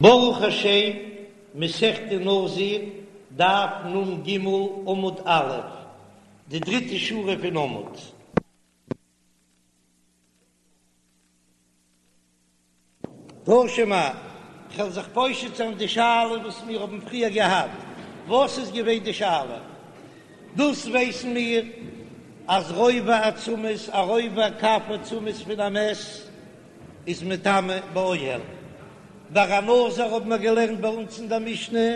ברוך השם, מסכת נזיר, דף נ"ג, עמוד א', די דריטע שורה פון עמוד. תא שמע, כ'וועל זיך פושט זיין די שאלה וואס מיר האבן פריער געהאט, וואס איז געווען די שאלה? דאס ווייסן מיר אז רובע עצמות, א רובע קב עצמות פון א מת, איז מטמא באוהל. ביי א נזיר האבן מיר געלערנט ביי אונז אין דער משנה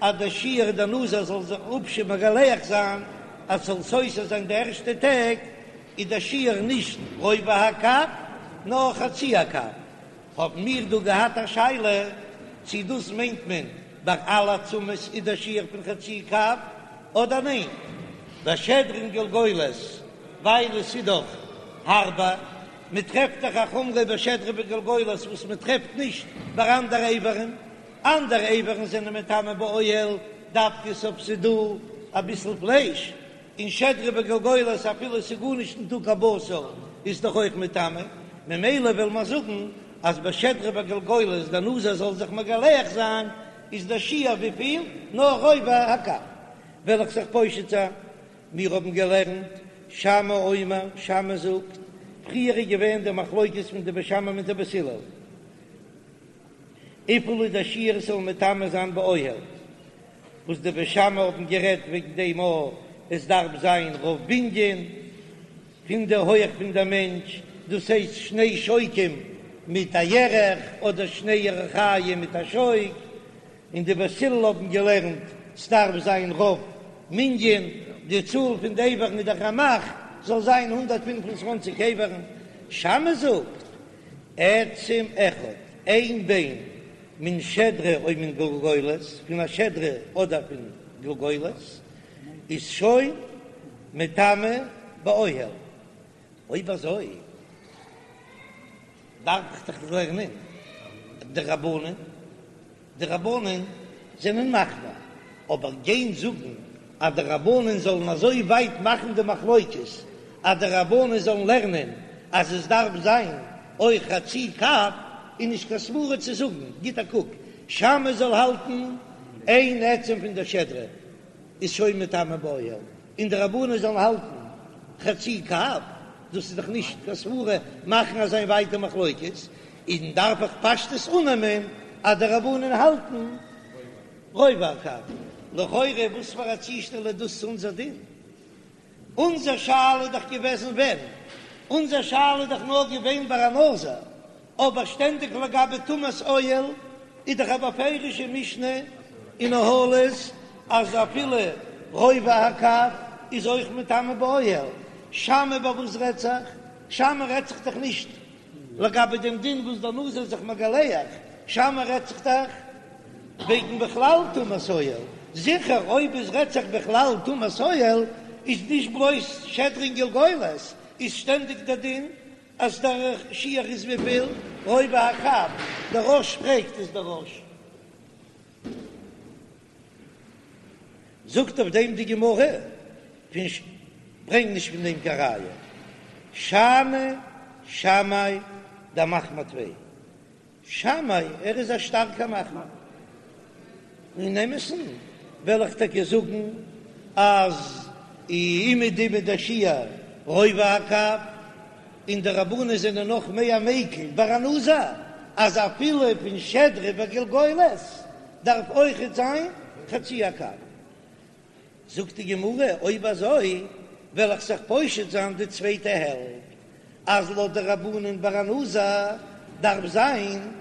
אז דער שיעור דער נזיר זאל זיך אפשר מגלח זיין אז ס'זאל סותר זיין די ערשטע טעג, איז דער שיעור נישט רובע הקב נאר חצי הקב. האבן מיר דא געהאט א שאלה צי דאס מיינט מען ביי אלע עצמות איז דער שיעור פון חצי קב אדער ניין ביי שדרה און גלגולת ווייל עס איז דאך הארבער. מען טרעפט דאך א חומרא ביי שדרה וגלגולת וואס מען טרעפט נישט ביי אנדערע איברים, אנדערע איברים זענען מטמא באוהל דווקא אויב ס'איז דא אביסל פלייש, און שדרה וגלגולת אפילו ס'איז גארנישט ניטא קיין בשר איז דאך אויך מטמא, ממילא וועל מיר זאגן אז ביי שדרה וגלגולת דער נזיר זאל זיך מגלח זיין איז דער שיעור וויפיל? נאר רובע הקב, וועל איך זיך פושט זיין מיר האבן געלערנט, שמאי אומר, שמאי זאגט, פריער איז געווען די מחלוקת פון די בית שמאי מיט די בית הלל, וויפיל איז דער שיעור ס'זאל מטמא זיין באוהל, וואס די בית שמאי האבן גערעדט וועגן דעם א עס דארף זיין רוב בנין פון די הויעך פון דער מענטש, דאס הייסט שני שוקים מיט א ירך, אדער שני ירכיים מיט א שוק. און די בית הלל האבן געלערנט סדארף זיין רוב מנין, די צאל פון די איברים מיט די רמ"ח זאל זיין 125 איברים, שמאי זאגט עצם אחד, איין ביין מן שדרה או מן גולגולת, פון א שדרה אדער פון גולגולת, איז שוין מטמא באוהל, אויב אזוי דארף איך דאך לערנען די רבנן, די רבנן זענען מחמיר, אבער גיין זאגן אז די רבנן זאלן אזוי ווייט מאכן די מחלוקת אז די רבנן זאלן לערנען אז עס דארף זיין אויך חצי קב איז נישט קיין סברא צו זאגן, גיט א קוק, שמאי זאל האלטן איין עצם פון דער שדרה איז שוין מטמא באוהל, און די רבנן זאלן האלטן חצי קב, דאס איז דאך נישט קיין סברא מאכן אזא ווייטע מחלוקת, און דארף איך פשטות אננעמען אז די רבנן האלטן רובע הקב. לכאורה וואס פאר א צושטעל איז דאס צו אונזער דין? אונזער שאלה איז דאך געוועזן ווען? אונזער שאלה איז דאך נאר געווען ביי א נזיר, אבער שטענדיג לגבי טומאת אוהל איז דאך א בפירושע משנה אין אהלות אז אפילו רובע הקב איז אויך מטמא באוהל, שמאי ביי וואס רעדט זיך? שמאי רעדט זיך דאך נישט לגבי דעם דין וואס דער נזיר איז זיך מגלח, שמאי רעדט זיך דאך וועגן בכלל טומאת אוהל, זיכער אויב עס רעדט זיך בכלל טומאת אוהל איז נישט בלויז שדרה און גלגולת, איז שטענדיג דער דין אז דער שיעור איז וויפיל? רובע הקב, דער רא"ש פרעגט איז דער רא"ש זאגט אויף דעם די גמרא פון ש ברענג נישט פון דעם קיין ראיה שאני שמאי דמחמיר טפי שמאי ער איז א שטארקע מחמיר. אין אמת'ן וועל איך טאקע זאגן אז אומעדום איז דער שיעור רובע הקב, און די רבנן זענען נאך מער מקיל ביי א נזיר אז אפילו פון שדרה וגלגולת דארף אויכעט זיין חצי הקב. זאגט די גמרא, אויב אזוי וועל איך זיך פושט זיין די צווייטע העלפט, אז לויט די רבנן ביי א נזיר דארף זיין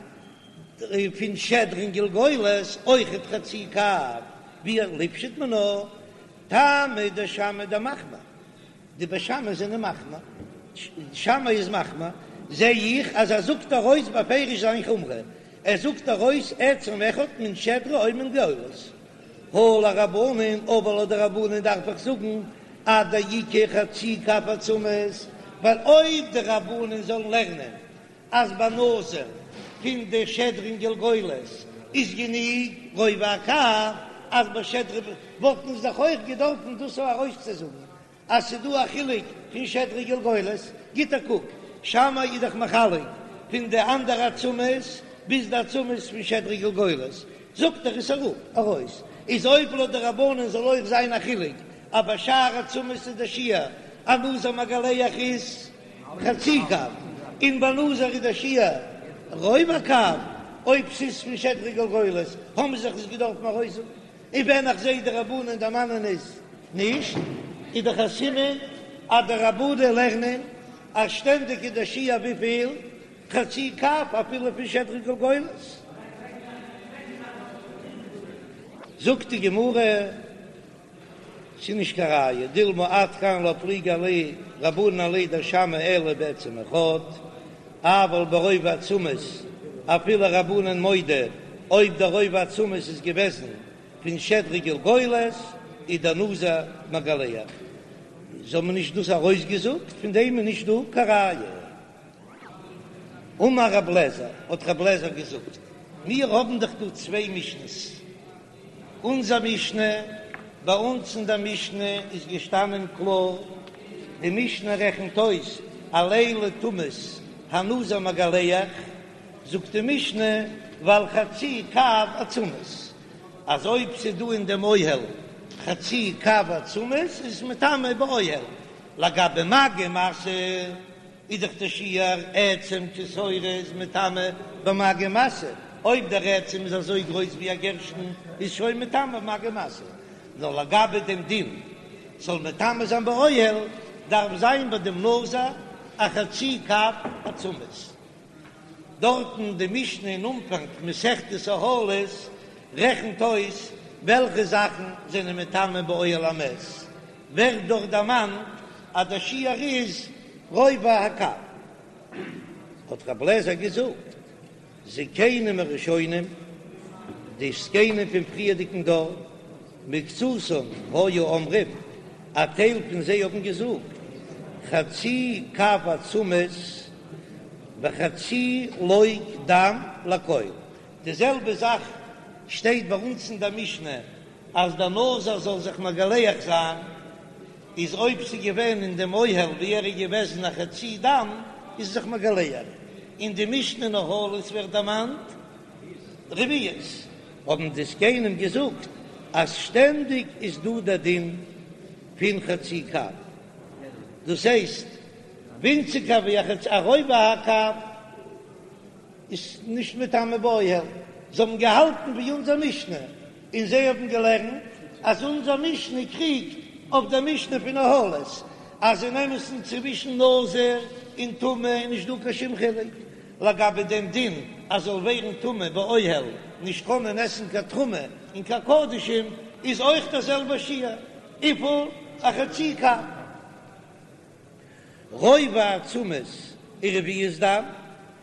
פון שדרה און גלגולת אויכעט חצי קב, ווי ליפשוט מינה, טעמא דשמאי דמחמיר, די בית שמאי זענען מחמיר, שמאי איז מחמיר, זע איך אז ער זאגט ארויס בפירוש זיין חומרא, ער זאגט ארויס עצם אחד מן שדרה או מן גלגולת. הא לרבנן, אבער לויט די רבנן דארף איך זאגן עד דאיכא חצי קב עצמות, ווייל אויב די רבנן זאלן לערנען אז ביי נזיר פון די שדרה און גלגולת איז גענוג רובע הקב, אז ביי שדרה וואלטן זיי דאך אויך געדארפן דאס ארויסצוזאגן אז ס'איז דא א חילוק פון שדרה גלגולת, גיט א קוק, שמאי איז דאך מחלק פון די אנדערע עצמות. ביז די עצמות פון שדרה גלגולת, זאגט ער עס אראפ, ארויס, איז אויב לויט די רבנן זאל אויך זיין א חילוק אז ביי שאר עצמות איז דער שיעור א נזיר מגלח איז חצי קב, און ביי נזיר איז דער שיעור רובע קב, אויב ס'איז פון שדרה גלגולת האבן זיי זיך עס געדארפן ארויסזאגן, און ווען איך זעה די רבנן דערמאנען עס נישט, איז דאך א סימן אז די רבנן לערנען אז שטענדיג איז דער שיעור וויפיל? חצי קב אפילו פון שדרה גלגולת. זאגט די גמרא, ס'איז נישט קיין ראיה, דילמא עד כאן לא פליגי עליה רבנן עליה דשמאי אלא בעצם אחד, אבל ברובע עצמות אפילו רבנן מודה, אויב דער רובע עצמות איז געוועזן פון שדרה גלגולת איז דער נזיר מגלח, זיי האבן נישט דאס ארויסגעזאגט, פון דעם איז נישט דא קיין ראיה. אמר רב לעזער, האט רב לעזער געזאגט, מיר האבן דאך דא צוויי משנה'ס, אונזער משנה, ביי אונז אין דער משנה איז געשטאנען קלאר, די משנה רעכנט אויס על אלו טומאות הנזיר מגלח, זאגט די משנה ועל חצי קב עצמות, אז אויב ס'איז דא אין דעם אוהל חצי קב עצמות איז עס מטמא באוהל, לגבי מגע ומשא איז דאך דער שיעור עצם כשעורה איז מטמא במגע ומשא, אויב דער עצם איז אזוי גרויס ווי א גערשטן איז שוין מטמא במגע ומשא, נאר לגבי דעם דין זאל מטמא זיין באוהל דארף זיין ביי דעם נזיר א חצי קב עצמות. דארטן די משנה אין אנפאנג מסכת אהלות רעכנט אויס וועלכע זאכן זענען מטמא באוהל המת, ווערט דארט דערמאנט אז דער שיעור איז רובע הקב. האט רב לעזער געזאגט, זקנים הראשונים, די זקנים פון פריערדיגן דור, מקצתן היו אומרים, א טייל פון זיי האבן געזאגט, חצי קב עצמות וחצי לוג דם לכל. די זעלבע זאך שטייט ביי אונז אין דער משנה, אז דער נזיר זאל זיך מגלח זיין, איז אויב ס'איז געווען אין דעם אוהל ווי ער איז געוועזן א חצי דם, איז זיך מגלח. אין די משנה אין אהלות ווערט דערמאנט רביעית, האבן די זקנים געזאגט אז שטענדיג איז דא דער דין פון חצי קב, דאס הייסט ווינציגער ווי א חצי, א רובע הקב איז נישט מטמא באוהל, זיי האבן געהאלטן ווי אונזער משנה, און זיי האבן געלערנט אז אונזער משנה קריגט אויף דער משנה פון אהלות, אז אין אמת'ן צווישן נזיר און טמא איז נישט דא קיין שום חילוק, לגבי דעם דין אז זאל ווערן טמא באוהל, נישט קענען עסן קיין תרומה און קיין קדשים, איז אויך דער זעלבער שיעור, וויפיל? א חצי קב. רובע עצמות ורביעית דם,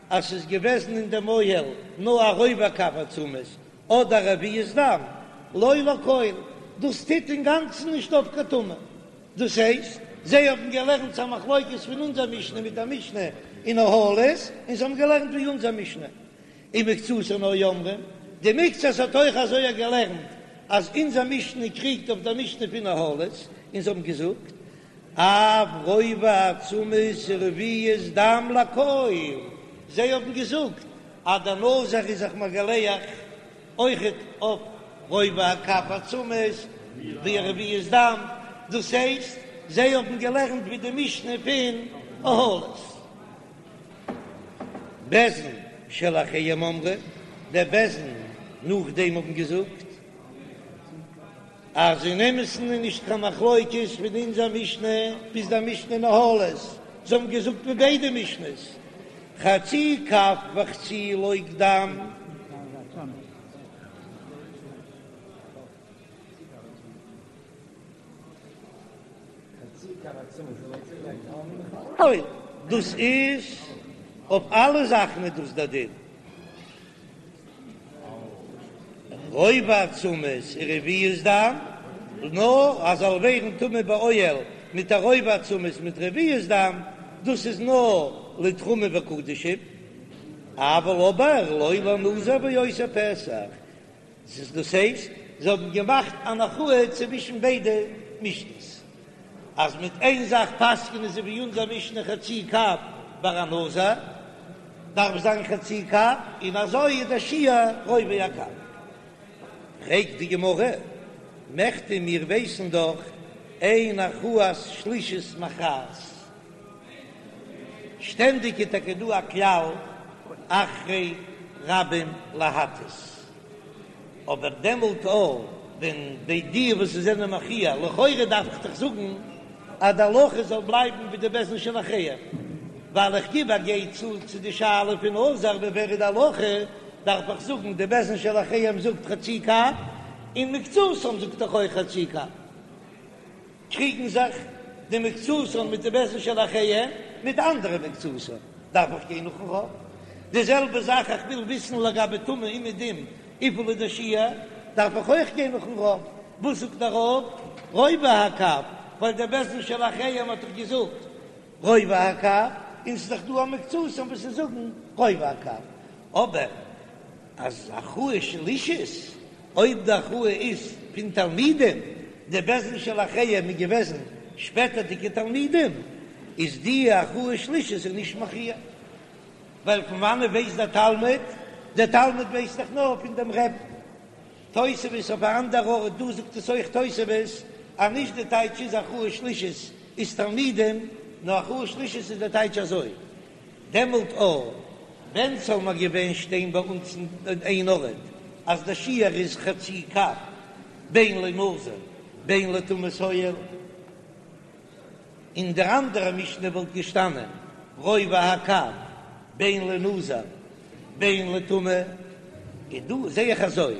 אז ס'איז געוועזן אין דעם אוהל נאר א רובע קב עצמות אדער רביעית דם, לא לכל, דאס טוט אינגאנצן נישט אויף קיין טומאה. דאס הייסט, זיי האבן געלערנט ס'איז א מחלוקת פון אונזער משנה מיט א משנה אין אהלות, און זיי האבן געלערנט ווי אונזער משנה. ומקצתן היו אומרים, די מקצת האט אויך אזוי געלערנט אז אונזער משנה קריגט אויף דער משנה פון אהלות, און זיי האבן געזאגט, אף רובע עצמות ורביעית דם לכל, זיי האבן געזאגט אז דער נזיר איז זיך מגלח אויכעט אויף רובע הקב עצמות ורביעית דם, דאס הייסט זיי האבן געלערנט ווי די משנה פון אהלות. בית דין שלאחריהם אמרו, דער בית דין נאכדעם האבן געזאגט אז אין אמת'ן איז נישט קיין מחלוקת פון אונזער משנה ביז דער משנה אין אהלות, זיי האבן געזאגט ווי ביידע משנה'ס, חצי קב וחצי לוג דם. דאס איז אויף אלע זאכן איז דאס דער דין. רובע עצמות ורביעית דם, נאר אז זאל ווערן טמא באוהל מיט א רובע עצמות מיט רביעית דם, דאס איז נאר לתרומה וקדשים, אבל אבער לא לנזיר ועושה פסח, דאס הייסט זיי האבן געמאכט אן הכרעה צווישן ביידע משנה'ס, אז מיט איין זאך פסק'נען זיי ווי אונזער משנה חצי קב ביי א נזיר. דארף זיין חצי קב, און אזוי איז דער שיעור רובע הקב. פרעגט די גמרא, מכדי מיר ווייסן דאך אין הכרעת שלישית מכרעת, שטענדיג איז טאקע דא א כלל אחרי רבים להטות, אבער דעמאלט אויך ווען די די וואס זענען מכריע, לכאורה דארף איך דאך זאגן אז די הלכה זאל בלייבן ווי די בית דין של אחריהם, ווייל איך גיב א גיי צו צו די שאלה פון נזיר ווי ווער איז די הלכה, דארף איך זאגן די בית דין של אחריהם זאגט חצי קב, און מקצתן זאגט דאך אויך חצי קב. קריגן זיך די מקצתן מיט די בית דין של אחריהם מיט אנדערע מקצתן, דארף איך גיין נאכן רוב. די זעלבע זאך איך וויל וויסן לגבי טומאה אומעדום וויפיל איז דער שיעור, דארף איך אויך גיין נאכן רוב. וואס זאגט דער רוב? רובע הקב, ווייל דער בית דין של אחריהם האט דאך געזאגט רובע הקב, און ס'איז דאך דא א מקצתן וואס זיי זאגן רובע הקב. אבער אז הכרעה שלישית, אויב די הכרעה איז פון תלמידים, די בית דין של אחריהם איז געוועזן שפעטערדיגע תלמידים, איז די הכרעה שלישית איז נישט מכריע, ווייל פון וואנעט ווייסט דער תלמיד? דער תלמיד ווייסט דאך נאר פון דעם רבי'ן. תוספות אויף א אנדער ארט, דא זאגט עס אויך תוספות, אז נישט די טייטש איז הכרעה שלישית איז תלמידים, נאר הכרעה שלישית איז די טייטש אזוי, דעמאלט אויך ווען ס'זאל נאר געווען שטיין ביי אונז אין איין ארט אז די שיעור איז חצי קב בין לנזיר בין לטומאת אוהל, אין דער אנדערע משנה וואלט געשטאנען רובע הקב בין לנזיר בין לטומאה, און דא זע איך אזוי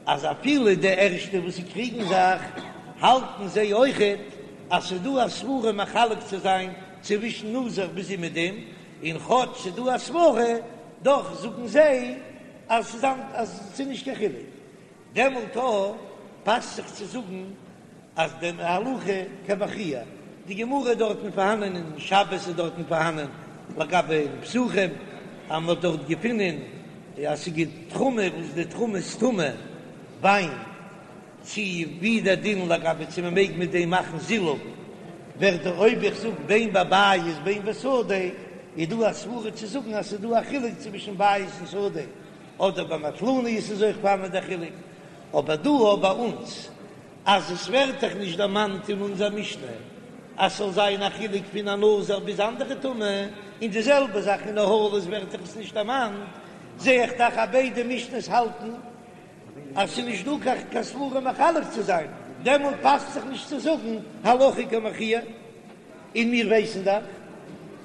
אז אפילו די ערשטע וואס קריגן זיך האלטן זיי אויכעט אז ס'דא א סברה מחלק צו זיין צווישן נזיר ביז אומעדום, און כאטש ס'דא א סברה דאך זאגן זיי אז ס'איז אז ס'איז נישט קיין חילוק. דעמאלט אויך פאסט זיך צו זאגן אז די הלכה כמכריע, די גמרא איז דארטן פארהאנען אין שבת איז דארטן פארהאנען לגבי אין פסחים אז מ'האט דארט געפונען אז ס'איז תרומה וואס די תרומה איז טמא וויין, צו ווי דער דין לגבי צו מ'מעג מיט דעם מאכן זילוף, ווערט דער אויב איך זאג בין בבית בין בשדה איז דא א סברה צו זאגן אז ס'איז דא א חילוק צווישן בית און שדה. אדער ביי מטלניות איז אויך פארהאן דער חילוק, אבער דא אויך ביי אונז אז עס ווערט דאך נישט דערמאנט אין אונזער משנה אז ס'זאל זיין א חילוק פון א נזיר ביז אנדערע טומאה, און די זעלבע זאך אין אהלות ווערט דאך עס נישט דערמאנט, זע איך דאך אז ביידע משנה'ס האלטן אז ס'איז נישט דא קיין סברה מחלק צו זיין, דעמאלט פאסט זיך נישט צו זאגן הלכה כמכריע. און מיר ווייסן דאך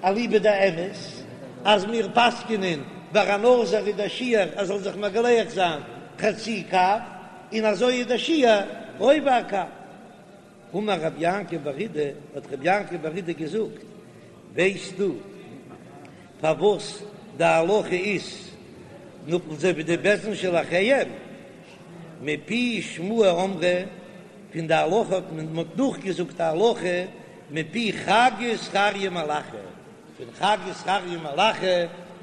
אליבא דאמת אז מיר פסק'נען ביי א נזיר איז דער שיעור אז זאל זיך מגלח זיין חצי קב, און אזוי איז דער שיעור רובע הקב. אמר רב יעקב בר אידי, האט רב יעקב בר אידי געזאגט, ווייסטו פארוואס די הלכה איז נאך אזוי ווי די בית דין של אחריהם? מפי שמועה אמרו, פון די הלכה האט מען מ'האט נאכגעזאגט א הלכה מפי חגי זכריה ומלאכי, פון חגי זכריה ומלאכי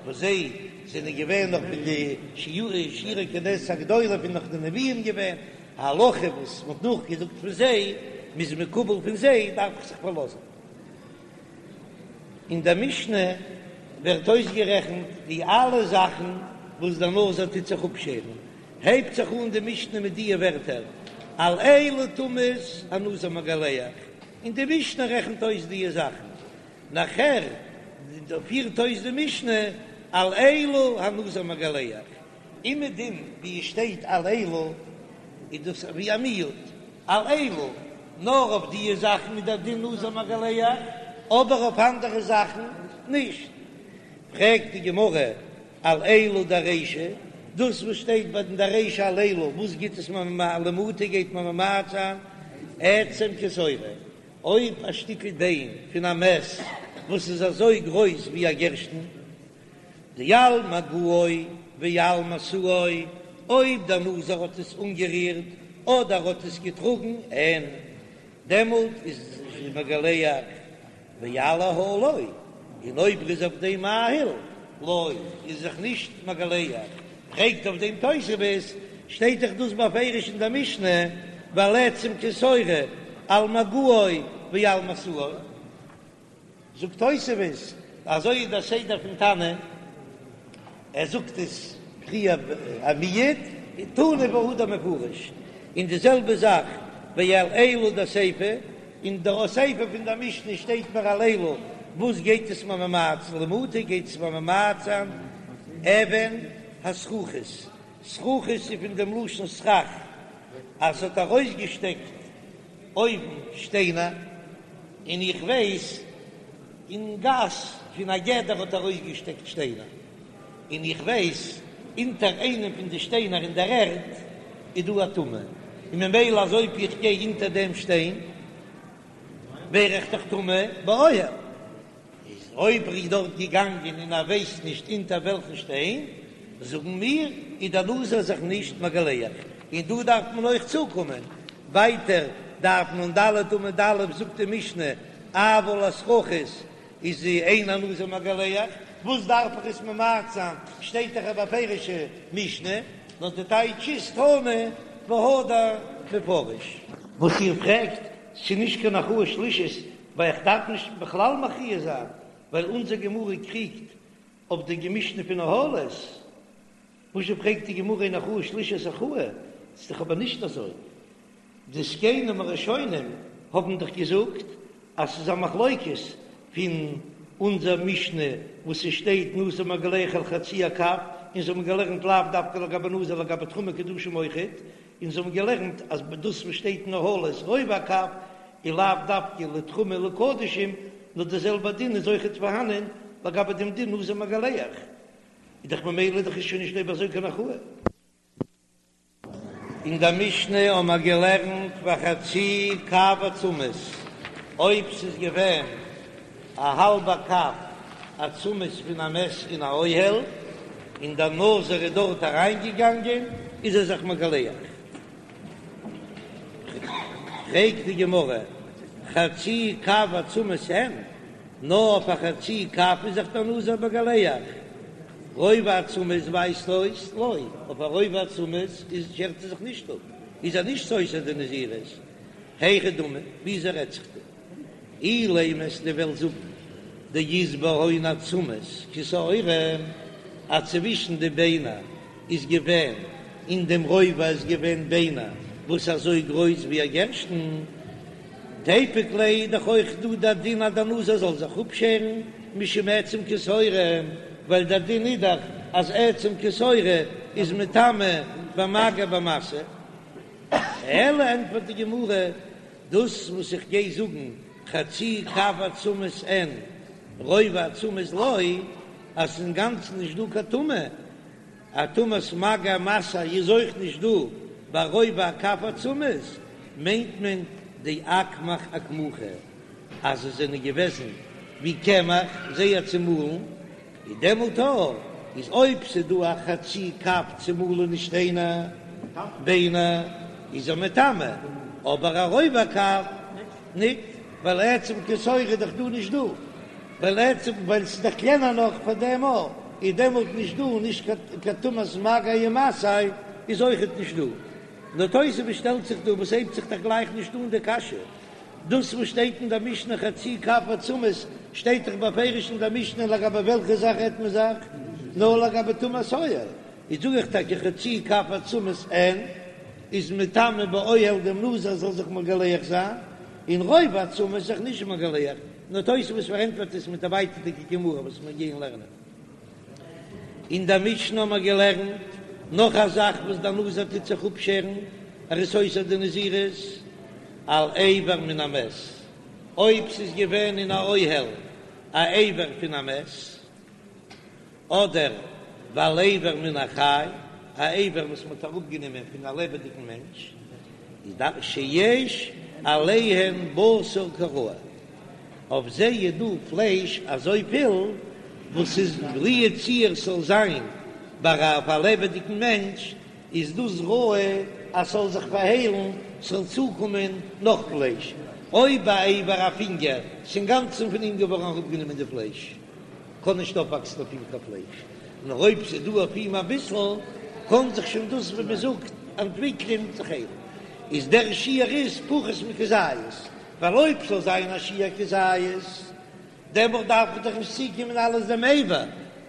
וואס זיי זענען געווען נאך פון די שיירי כנסת הגדולה פון נאך די נביאים געווען, א הלכה וואס מ'האט נאכגעזאגט פון זיי, מ'איז מקובל פון זיי דארף איך זיך פארלאזן. אין דער משנה ווערט אויסגערעכנט די אלע זאכן וואס דער נזיר טוט זיך אפשערן, הייבט זיך אן די משנה מיט דיע ווערטער על אילו טומאות הנזיר מגלח, און די משנה רעכנט אויס דיע זאכן, נאכער פירט אויס די משנה על אלו הנזיר מגלח, אומעדום ווי עס שטייט על אלו איז דאס ווי א מיעוט, על אלו, נאר אויף דיע זאכן איז דער דין נזיר מגלח, אבער אויף אנדערע זאכן נישט. פרעגט די גמרא על אלו דרישא, דאס וואס שטייט ביי די רישא על אלו, וואס גיט עס מיר למעוטי גייט מען ממעט זיין עצם כשעורה, אויב א שטיקל ביין פון א מת וואס איז אזוי גרויס ווי א גערשטן, דעל מגעו ועל משאו, אויב דער נזיר האט עס אנגערירט אדער האט עס געטראגן, אין דעמאלט איז מגלח. ועל אהלו, און אויב ער איז אויף דעם מאהיל, לא, איז זיך נישט מגלח. פרעגט אויף דעם תוספות, שטייט דאך דאס בפירוש אין דער משנה, ועל עצם כשעורה, על מגעו ועל משאו. זאגט תוספות, אזוי איז דער סדר פון תנא. ער זאגט עס פריער א מיעוט, תנא והדר מפרש, און די זעלבע זאך ועל אלו דסיפא, אין די סיפא פון די משנה שטייט מיר על אלו, וואס גייט עס מיר ממעט זיין למעוטי גייט עס מיר ממעט זיין אבן הסרוחית, סרוחית איז פון דעם לשון סרח אז ס'האט ארויסגעשטעקט אויבן שטיינער, און איך ווייס אין גאס פון א גדר האט ארויסגעשטעקט שטיינער, און איך ווייס אונטער איינעם פון די שטיינער אין דער ערד איז דא א טומאה, און ממילא אז אויב איך גיי אונטער דעם שטיין ווער איך דאך טמא באוהל. איז אויב ער איז דארט געגאנגען און ער ווייסט נישט אונטער וועלכן שטיין, זאגן מיר, איז דער נזיר זיך נישט מגלח. און דא דארף מען אויך צוקומען ווייטער, דף נ"ד עמוד א' זאגט די משנה, אבל הסרוחית איז אין הנזיר מגלח, וואס דארף איך עס ממעט זיין, שטייט דאך א בפירוש'ע משנה, נאר די טייטש איז תנא והדר מפרש. וואס איר פרעגט, ס'איז נישט קיין הכרעה שלישית, ווייל איך דארף נישט בכלל מכריע זיין, ווייל אונזער גמרא קריגט אויף די משנה פון אהלות, וואזשע פרעגט די גמרא אין הכרעה שלישית הכרעה, ס'איז דאך אבער נישט אזוי, די זקנים הראשונים האבן דאך געזאגט אז ס'איז א מחלוקת פון אונזער משנה וואס ס'שטייט נזיר מגלח על חצי הקב, און זיי האבן געלערנט לאו דווקא לגבי נזיר לגבי תרומה קדשים אויכעט, און זיי האבן געלערנט אז דאס וואס שטייט אין אהלות רובע הקב איז לאו דווקא לתרומה לקדשים, נאר די זעלבע דין איז אויכעט פארהאנען לגבי דעם דין נזיר מגלח, איז דאך ממילא דאך איז שוין נישט אויב אזוי קיין הכרעה. אין דער משנה האבן מיר געלערנט וחצי קב עצמות, אויב ס'איז געווען א האלבע קב עצמות פון א מת אין א אוהל, און דער נזיר איז דארט אריינגעגאנגען, איז ער זיך מגלח. פרעגט די גמרא, חצי קב עצמות אין? נאר אויף א חצי קב איז זיך דער נזיר מגלח, רובע עצמות ווייזט אויס לא, אויף א רובע עצמות איז שערט ער זיך נישט אפ, איז ער נישט סותר די נזירות, היכי דמי, וויאזוי רעדט זיך דא? אילימא אז דו וועסט זאגן דאית בהון עצמות כשעורה, אז צווישן די ביינער איז געווען אין דעם רובע איז געווען ביינער וואס אזוי גרויס ווי א גערשטן, תיפוק ליה איז דאך אויך דא דער דין אז דער נזיר זאל זיך אפשערן משום עצם כשעורה, ווייל דער דין איז דאך אז עצם כשעורה איז מטמא במגע במשא. אלא ענטפערט די גמרא, דאס וואס איך גיי זאגן חצי קב עצמות אין רובע עצמות לא, אז ס'איז אינגאנצן נישט דא קיין טומאה, א טומאת מגע ומשא איז אויך נישט דא ביי רובע הקב עצמות, מיינט מען דאקמח אקמוחי אז עס זענען געוועזן ווי קמח זייער צומאלן, איז דעמאלט אויך איז אויב ס'איז דא א חצי קב צומאלענע שטיינער ביינער איז ער מטמא, אבער א רובע הקב ניט, ווייל עצם כשעורה איז דאך דא נישט דא, ווייל עצם ווייל ס'איז דאך קלענער נאך פאר דעם אויך איז דעמאלט נישט דא נישט קיין טומאת מגע ומשא איז אויכעט נישט דא. נאר תוספות שטעלט זיך דא וואס הייבט זיך דאך גלייך נישט אן די קשיא. דאס וואס שטייט אין דער משנה חצי קב עצמות שטייט דאך בפירוש אין דער משנה לגבי וועלכע זאך רעדט מען זיך? נאר לגבי טומאת אוהל. איז זאג איך טאקע חצי קב עצמות אין איז מטמא באוהל דעם נזיר זאל זיך מגלח זיין, און רובע עצמות זיך נישט מגלח, נאר תוספות פארענטפערט עס מיט א ווייטערדיגע גמרא וואס מיר גייען לערנען. אין דער משנה האבן מיר געלערנט נאך א זאך וואס דער נזיר טוט זיך אפשערן, ער איז סותר די נזירות על אבר מן המת, אויב ס'איז געווען אין א אוהל א אבר פון א מת, אדער ועל אבר מן החי, א אבר וואס מ'האט אראפגענומען פון א לעבעדיגן מענטש, איז דאך שיש עליהן בשר כראוי, אויף זיי איז דא פלייש אזויפיל וואס איז לו יצוייר ס'זאל זיין ביי אויף א לעבעדיגן מענטש, איז דאס ראוי אז ס'זאל זיך פארהיילן, ס'זאל צוקומען נאך פלייש, אויב א אבר א פינגער, ס'אינגאנצן פון אים געווארן אראפגענומען די פלייש. קען נישט אויפוואקסן אויף אים קיין פלייש, נאר אויב ס'איז דא אויף אים אביסל, קען זיך שוין דאס ווי מ'זאגט אנטוויקלען זיך היילן. איז דער שיעור איז פחות מכזית, ווייל אויב ס'זאל זיין א שיעור כזית, דעמאלט דארף איך דאך נישט צוקומען אלעס דעם אבר,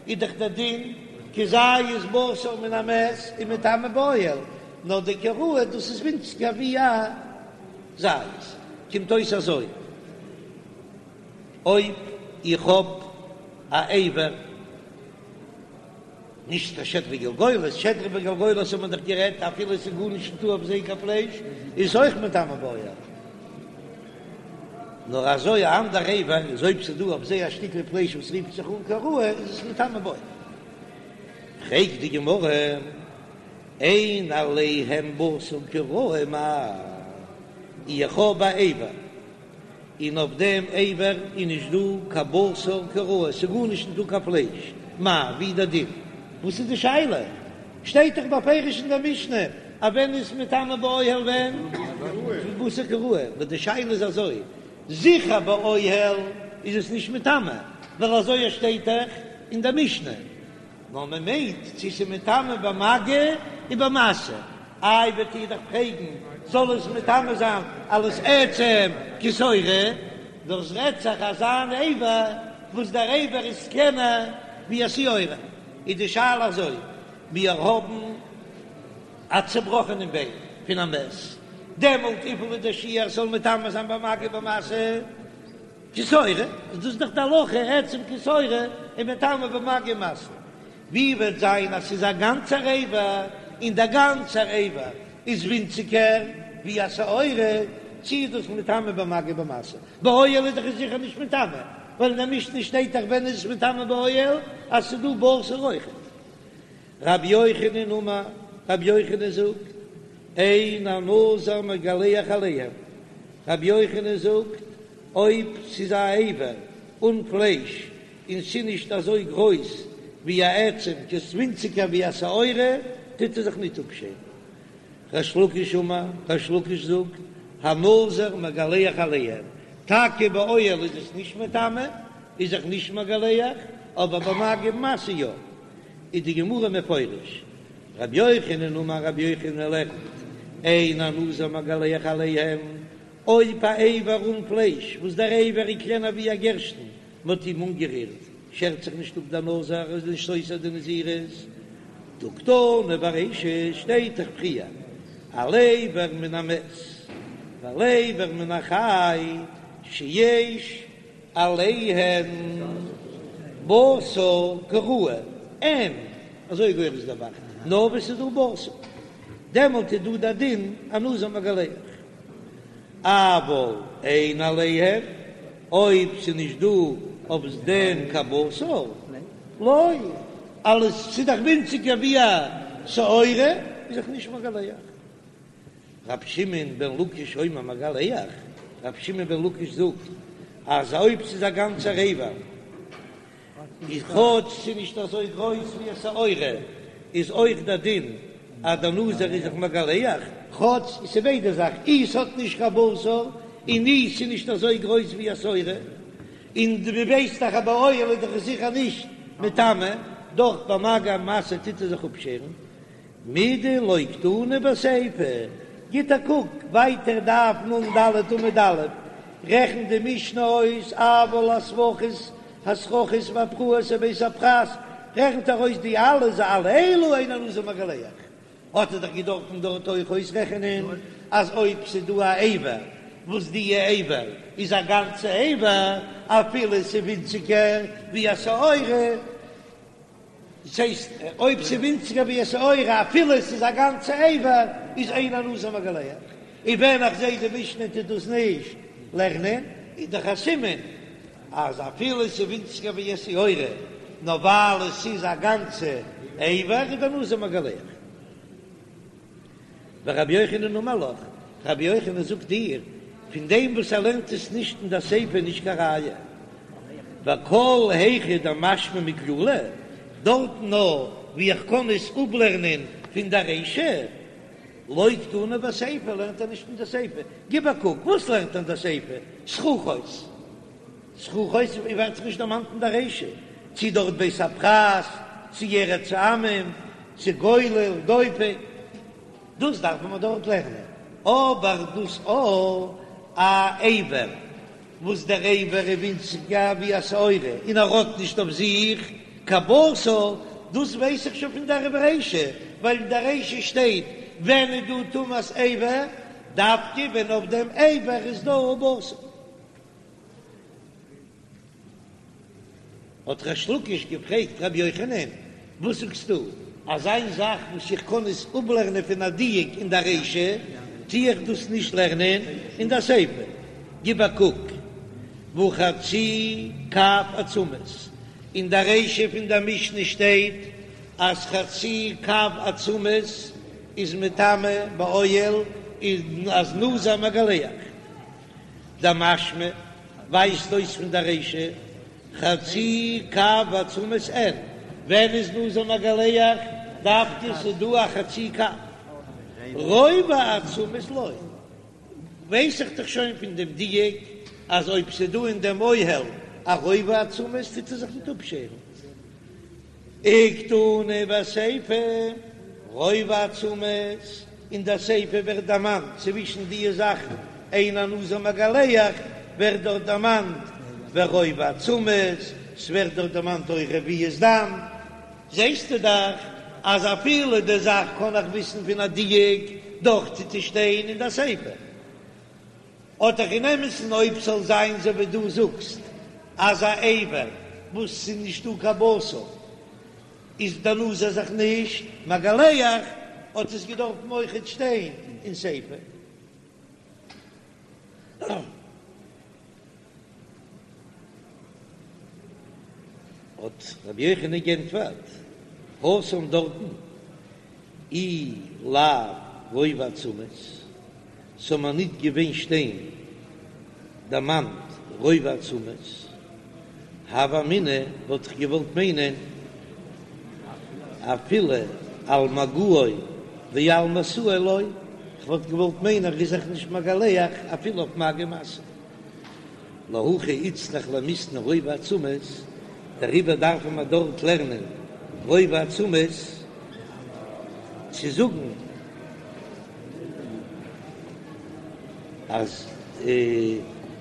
איז דאך דער דין כמעשר. כזית בשר מן המת איז מטמא באוהל, נאר די כראוי דאס איז ווינציגער ווי א זית. קומט אויס אזוי, אויב איך האב א אבר, נישט קיין שדרה וגלגולת, שדרה וגלגולת האט מען דאך גערעדט אפילו עס איז גארנישט נישטא אויף זיי קיין פלייש איז אויך מטמא באוהל, נאר אזוי א אנדער אבר איז אויב ס'איז דא אויף זיי א שטיקל פלייש וואס רופט זיך אן כראוי איז עס מטמא באוהל. פרעגט די גמרא, אין עליהם בשר כראוי מאי, איך האב א אבר און אויף דעם אבר איז נישט דא קיין בשר כראוי, ס'איז גארנישט נישט דא קיין פלייש, מאי, ווי איז דער דין? וואס איז די שאלה? שטייט דאך בפירוש אין דער משנה אז ווען איז מטמא באוהל ווען בשר כראוי, נאר די שאלה איז אזוי, זיכער באוהל איז עס נישט מטמא, ווייל אזוי שטייט דאך אין דער משנה, נאר מען מיינט צו ס'איז מטמא במגע ובמשא, איי וועט איר דאך פרעגן זאל עס מטמא זיין אלס עצם כשעורה, דאס רעדט זיך אזא אן אבר וואס דער אבר איז קלענער ווי א שעורה, איז די שאלה אזוי, מיר האבן א צובראכענעם ביין פון א מת, דעמאלט וויפיל איז דער שיעור ס'זאל מטמא זיין במגע ובמשא? כשעורה, איז דאס דאך די הלכה, עצם כשעורה איז מטמא במגע ומשא. ווי וועט זיין אז ס'איז א גאנצער אבר, און דער גאנצער אבר איז ווינציגער ווי א שעורה, צי איז דאס מטמא במגע ובמשא? באוהל איז דאך עס זיכער נישט מטמא, ווייל אין דער משנה שטייט דאך ווען איז עס מטמא באוהל, אז ס'איז דא בשר אויכעט. רבי יוחנן אמר, רבי יוחנן זאגט, אין הנזיר מגלח עליהם, רבי יוחנן זאגט, אויב ס'איז א אבר אן פלייש און ס'איז נישט אזוי גרויס ווי א עצם, ס'איז ווינציגער ווי א שעורה, טוט ער זיך ניט אפשערן. ריש לקיש אמר, ריש לקיש זאגט, הנזיר מגלח עליהם, טאקע באוהל איז עס נישט מטמא, איז זיך נישט מגלח, אבער במגע ובמשא יא. איז די גמרא מפרש, רבי יוחנן אמר רבי יוחנן לערנט, אין הנזיר מגלח עליהם, אויב א אבר אן פלייש וואס דער אבר איז קלענער ווי א גערשטן, מ'האט אים אנגערירט, שערט זיך נישט אפ דער נזיר, איז נישט סותר די נזירות. דהא קתני ברישא שטייט דאך פריער על אבר מן המת ועל אבר מן החי שיש עליהן בשר כראוי, אין, אזוי גורס דער ב"ח, נאר ווען ס'איז דא בשר, דעמאלט איז דא דער דין הנזיר מגלח, אבל אין עליהם, אויב ס'איז נישט דא אויף דעם קיין בשר, לא, אלעס ס'איז דאך ווינציגער ווי א שעורה, איז זיך נישט מגלח. רבי שמעון בן לקיש אומר מגלח, רבי שמעון בן לקיש זאגט אז אויב ס'איז א גאנצער אבר, איז כאטש ס'איז נישט אזוי גרויס ווי א שעורה, איז אויך דער דין אז דער נזיר איז זיך מגלח, כאטש ס'איז ביידע זאכן, אי ס'האט נישט קיין בשר, און אי ס'איז נישט אזוי גרויס ווי א שעורה, און דו ווייסט דאך אז באוהל איז דאך עס זיכער נישט מטמא, דאך במגע ומשא טוט ער זיך אפשערן, מידי לא קתני בסיפא, גיט א קוק ווייטער דף נ"ד עמוד א', רעכנט די משנה אויס אבל הספחות הסככות והפרעות ובית הפרס, רעכנט ער אויס די אלע ז על אלו אין הנזיר מגלח, האט ער דאך געדארפן דארט אויך אויסרעכענען אז אויב ס'איז דא א אבר וואס די אבר איז א גאנצע אבר אפילו ס'איז ווינציגער ווי א שעורה, דאס הייסט אויב ס'איז ווינציגער ווי א שעורה אפילו עס איז א גאנצע אבר איז אין הנזיר מגלח, און ווען איך זעה די משנה טוט דאס נישט לערנען איז דאך א סימן אז אפילו עס איז ווינציגער ווי א שעורה נאר ווייל עס איז א גאנצע אבר איז דער נזיר מגלח. ורבי יוחנן אמר לך, רבי יוחנן זאגט דיר, פון דעם וואס ער לערנט עס נישט אין דער סיפא איז נישט קיין ראיה, וכל היכא דמשמע מכללא, דארטן נאר וואו איך קען עס אפלערנען פון דער רישא, לא קתני בסיפא לערנט ער נישט אין דער סיפא, גיב א קוק, וואס לערנט ער אין דער סיפא? סככות. סככות ווערט זיך נישט דערמאנט אין דער רישא, צי דארט בית הפרס, צי ארץ העמים, צי גולל, דופק, דאס דארף מען דארט לערנען, אבער דאס א א אבר וואס דער אבר איז ווינציגער ווי א שעורה און ער האט נישט אויף זיך קיין בשר. דאס ווייס איך שוין פון דער רישא, ווייל אין דער רישא שטייט ווען איז דא טומאת אבר, דווקא ווען אויף דעם אבר איז דא בשר. האט ריש לקיש געפרעגט רבי יוחנן, וואס זאגסטו אז איין זאך וואס איך קען עס אפלערנען פון א דיוק אין דער רישא, טו איך דאס נישט לערנען אין דער סיפא? גיב א קוק, והא חצי קב עצמות, אין דער רישא פון דער משנה שטייט אז חצי קב עצמות איז מטמא באוהל, און אז נזיר מגלח. דמשמע ווייזט אויס פון דער רישא חצי קב עצמות אין, ווען איז נזיר מגלח דווקא ס'דא א חצי קב, רובע עצמות לא, ווייס איך דאך שוין פון דעם דיוק אז אויב ס'דא אין דעם אוהל א רובע עצמות טוט ער זיך ניט אפשערן. וקתני בסיפא, רובע עצמות, אין דער סיפא ווערט דערמאנט צווישן די זאכן אין הנזיר מגלח ווערט דארט דערמאנט ורובע עצמות, ס'ווערט דארט דערמאנט אויך רביעית דם, זעסטו דאך אז אפילו די זאך קען איך וויסן פון א דיוק, דאך טוט עס שטיין אין דער סיפא. האט דאך אין אמת'ן אויב ס'זאל זיין אזוי ווי דו זאגסט אז א אבר וואס ס'איז נישטא קיין בשר איז דער נזיר זיך נישט מגלח האט עס געדארפן אויכעט שטיין אין סיפא. האט רבי יוחנן גענטפערט, התם דארטן אי לאו רובע עצמות, ס'זאל מיר ניט געווען שטיין דערמאנט רובע עצמות, הוה אמינא וואלט איך געוואלט מיינען אפילו על מגעו ועל משאו לא, כ'וואלט געוואלט מיינען ער איז זיך נישט מגלח אפילו אויף מגע ומשא. להכי איצטריך למיתני רובע עצמות, דעריבער דארפן מיר דארט לערנען רובע עצמות צו זאגן אז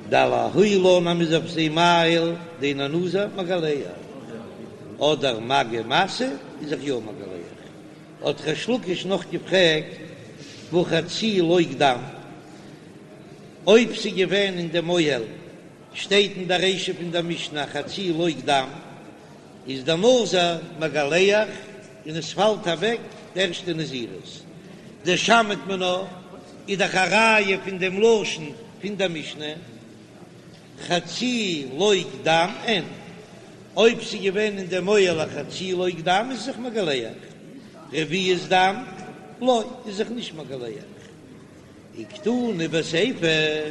דלהעילן אז מ'איז אויף זיי מאהיל דאין הנזיר מגלח, אדער מגע ומשא איז זיך יא מגלח. האט ריש לקיש נאך געפרעגט והא חצי לוג דם. אויב ס'איז געווען אין דעם אוהל, שטייט אין דער רישא פון דער משנה חצי לוג דם, איז דער נזיר מגלח און עס פאלט אוועק די ערשטע נזירות. דשמעת מינה איז דאך א ראיה פון דעם לשון פון דער משנה חצי לוג דם אין, אויב ס'איז געווען אין דעם אוהל א חצי לוג דם איז זיך מגלח, רביעית דם לא איז זיך נישט מגלח. וקתני בסיפא,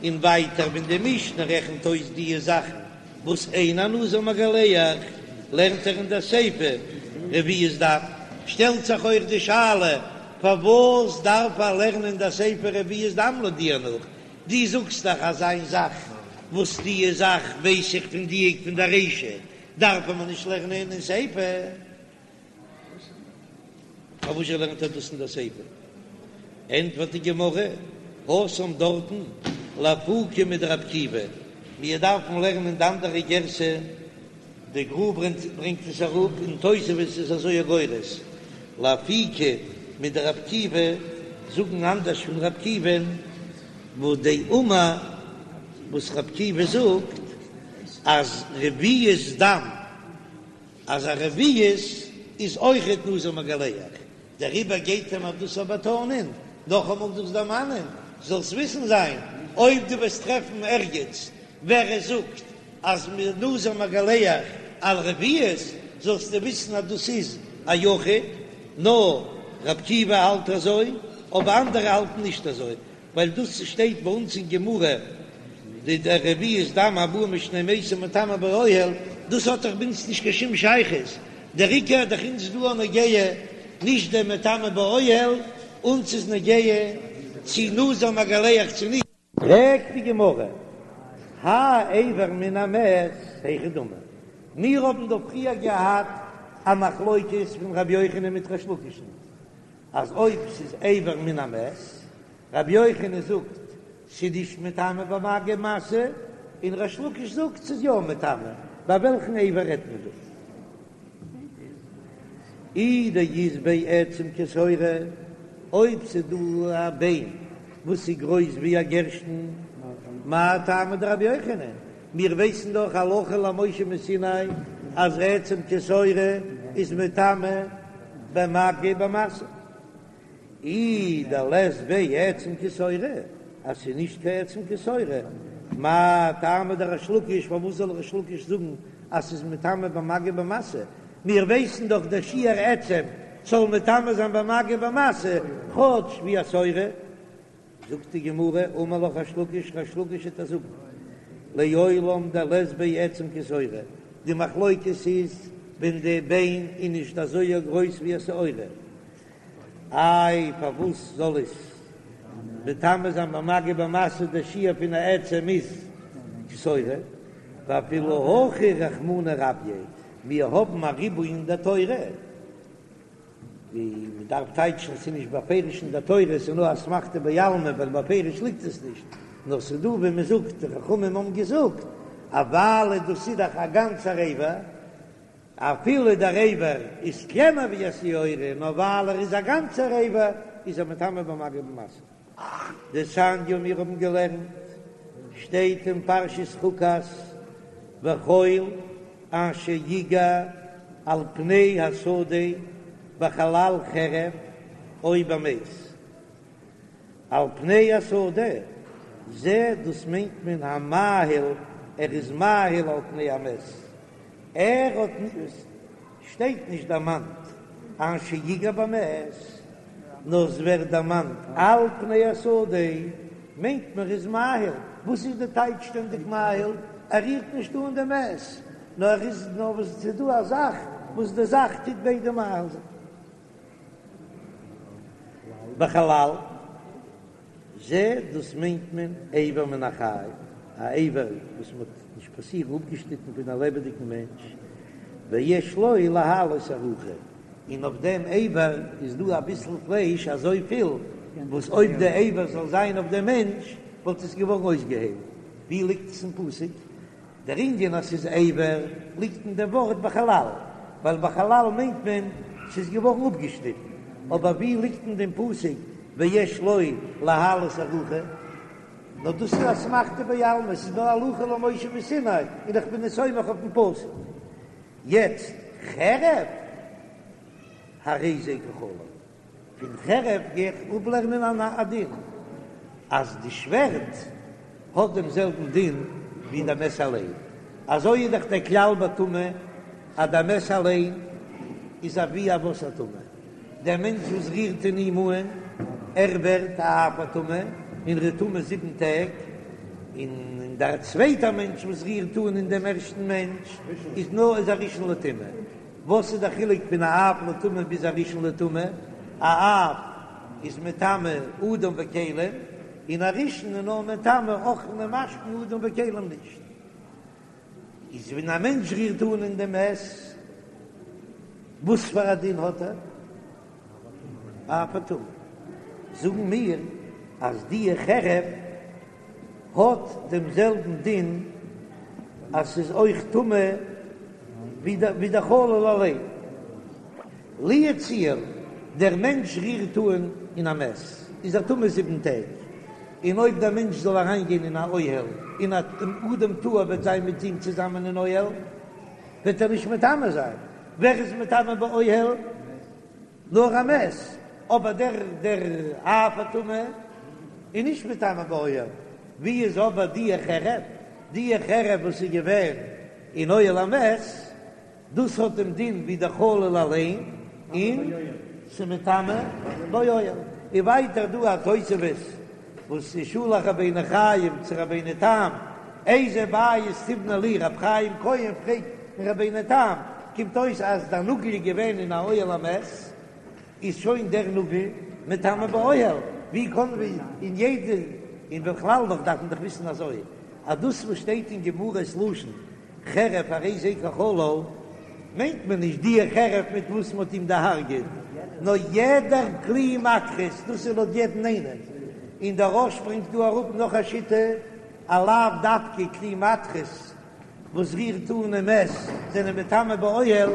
און ווייטער ווען די משנה רעכנט אויס די זאכן וואס אין הנזיר מגלח, לערנט ער אין דער סיפא רביעית דם, שטעלט זיך אויך די שאלה פארוואס דארף ער לערנען אין דער סיפא רביעית דם לויט דיר נאך, דו זאגסט דאך אז איין זאך וואס די זאך ווייס איך פון דיוק פון דער רישא דארף מען נישט לערנען אין סיפא. פארוואס זשע לערנט ער דאס אין דער סיפא? ענטפערט די גמרא, התם דארטן לאפוקי מדרבי עקיבא, מיר דארפן לערנען די אנדערע גירסא, די גר"א ברענגט עס אראפ און תוספות איז אזוי גורס, לאפוקי מדרבי עקיבא, זאגן אנדערש פון רבי עקיבא'ן, וואס דאמר וואס רבי עקיבא זאגט אז רביעית דם אז א רביעית איז אויכעט נזיר מגלח, דעריבער גייט ער מיר דאס באטאנען, נאכאמאל דאס דערמאנען, זאלסט וויסן זיין, אויב דו וועסט טרעפן ערגעץ ווער עס זאגט אז נזיר מגלח על רביעית, זאלסטו וויסן אז דאס איז א יחיד, נאר רבי עקיבא האלט אזוי, אבער אנדערע האלטן נישט אזוי, ווייל דאס שטייט ביי אונז אין גמרא די רביעית דם הבא משני מתים מטמא באוהל, דאס האט דאך ביי אונז נישט קיין שום שייכות, דער עיקר איז דאך אונז דא נוגע נישט דער מטמא באוהל, אונז איז נוגע צי נזיר מגלח צי נישט. פרעגט די גמרא, האי אבר מן המת היכי דמי, מיר האבן דא פריער געהאט א מחלוקת פון רבי יוחנן מיט ריש לקיש'ן, אז אויב ס'איז אבר מן המת, רבי יוחנן זאגט ס'איז נישט מטמא במגע ומשא, און ריש לקיש זאגט ס'איז יא מטמא, ביי וועלכן אבר רעדט מען דא? אי דאית ביה עצם כשעורה, אויב ס'איז דא א ביין וואס איז גרויס ווי א גערשטן, מאי טעמא דרבי יוחנן, מיר ווייסן דאך הלכה למשה מסיני אז עצם כשעורה איז מטמא במגע ובמשא. אי דלית ביה עצם כשעורה, אז ס'איז נישט קיין עצם כשעורה, מאי טעמא דריש לקיש, פארוואס זאל ריש לקיש זאגן אז ס'איז מטמא במגע ובמשא? מיר ווייסן דאך דער שיעור עצם זאל מטמא זיין במגע ובמשא, כאטש ווי א שעורה. זאגט די גמרא, אמר לך ריש לקיש, ריש לקיש וועט דיר זאגן, לעולם דלית ביה עצם כשעורה, די מחלוקת איז ווען די ביין איז נישט אזוי גרויס ווי א שעורה, איי פארוואס זאל עס מטמא זיין במגע ובמשא די שיעור פון א עצם איז כשעורה, ואפילו הכי רחמנא רביה, מיר האבן א ריבוי אין די תורה, ווי מען דארף טייטשן ס'איז נישט בפירוש אין די תורה ס'איז נאר אסמכתא בעלמא ווייל בפירוש ליגט עס נישט, נאר ס'איז דא ווי מען זאגט די חכמים האבן געזאגט אז ווייל דאס איז דאך א גאנצער אבר, אפילו דער אבר איז קלענער ווי א שעורה, נאר ווייל ער איז א גאנצער אבר איז ער מטמא במגע ובמשא. דתניא מיר האבן געלערנט, שטייט אין פרשת חוקת, וכל אשר יגע על פני השדה בחלל חרב או במת. על פני השדה, זה דאס מיינט מען המאהיל, ער איז מאהיל על פני המת, ער האט נישט, שטייט נישט דערמאנט אשר יגע במת, נאר עס ווערט דערמאנט על פני השדה, מיינט מען ער איז מאהיל, וואס איז די טייטש שטענדיג מאהיל? ער רירט נישט אן די מת, נאר ער איז נאר וואס ס'איז דא א זאך וואס די זאך טוט ביידע מאהיל זיין. בחלל זה דאס מיינט מען אבר מן החי, א אבר וואס מען האט נישט פאסירן אפגעשניטן פון א לעבעדיגן מענטש, ויש לו להעלות ארוכה, און אויף דעם אבר איז דא אביסל פלייש אזויפיל וואס אויב די אבר זאל זיין אויף דעם מענטש וואלט עס געווארן אויסגעהיילט, ווי ליגט עס אין פסוק? דער ענין אז ס'איז אבר ליגט אין דעם ווארט בחלל, ווייל בחלל מיינט מען ס'איז געווארן אפגעשניטן, אבער ווי ליגט אין דעם פסוק ויש לו להעלות ארוכה? נאר דאס איז אסמכתא בעלמא, ס'איז נאר הלכה למשה מסיני און איך בין עס סומך אויפן פסוק. יעצט חרב הרי זה כחלל. פון חרב גיי איך אפלערנען א דין אז די שווערד האט דעם זעלבן דין ווי די מת אליין, אזוי איז דאך דער כלל בטומאה אז די מת אליין איז אבי אבות הטומאה, דער מענטש וואס רירט אין אים אן ער ווערט א אב הטומאה און ער איז טמא זיבן טעג, און דער צווייטער מענטש וואס רירט אן אין דעם ערשטן מענטש איז נאר איז א ראשון לטומאה. וואס איז דער חילוק פון א אב לטומאה ביז א ראשון לטומאה? א אב איז מטמא אדם וכלים, און א ראשון איז נאר מטמא אוכלין ומשקין אדם וכלים נישט. איז ווען א מענטש רירט אן אין דעם מת, וואס פאר א דין האט ער? אב הטומאה. זאגן מיר אז די חרב האט דעם זעלבן דין אז ס'איז אויך טמא ווי דער חלל אליין. לו יצוייר דער מענטש רירט אן אין א מת איז ער טמא זיבן טעג, און אויב דער מענטש זאל אריינגיין אין א אוהל און א אדם טהור וועט זיין מיט אים צוזאמען אין אוהל וועט ער נישט מטמא זיין, ווער איז מטמא באוהל? נאר א מת, אבער דער דער אב הטומאה איז נישט מטמא באוהל, ווי איז אבער די חרב? די חרב וואס איז געווען אין אוהל המת, דאס האט דעם דין ווי דער חלל אליין, און ס'מטמא באוהל. און ווייטער דא א תוספות וואס איז שלח רבינו חיים צו רבינו תם, איזה בית תבנה לי, רבי חיים כהן פרעגט פון רבינו תם, קומט אויס אז דער נאגל איז געווען אין א אוהל המת, איז שוין דער נאגל מטמא באוהל, ווי קען ווי אין יעדע, און בכלל נאך דארף מען דאך וויסן אזוי, אז דאס וואס שטייט אין גמרא ס'לשון חרב הרי זה כחלל, מיינט מען נישט די חרב מיט וואס מ'האט אים דערהארגעט, נאר יעדער כלי מתכות, דאס איז לויט יעדן איינעם, און דער רא"ש ברענגט דא אראפ נאך א שיטה, אז לאו דווקא כלי מתכות וואס רירט אן אין מת זענען מטמא באוהל.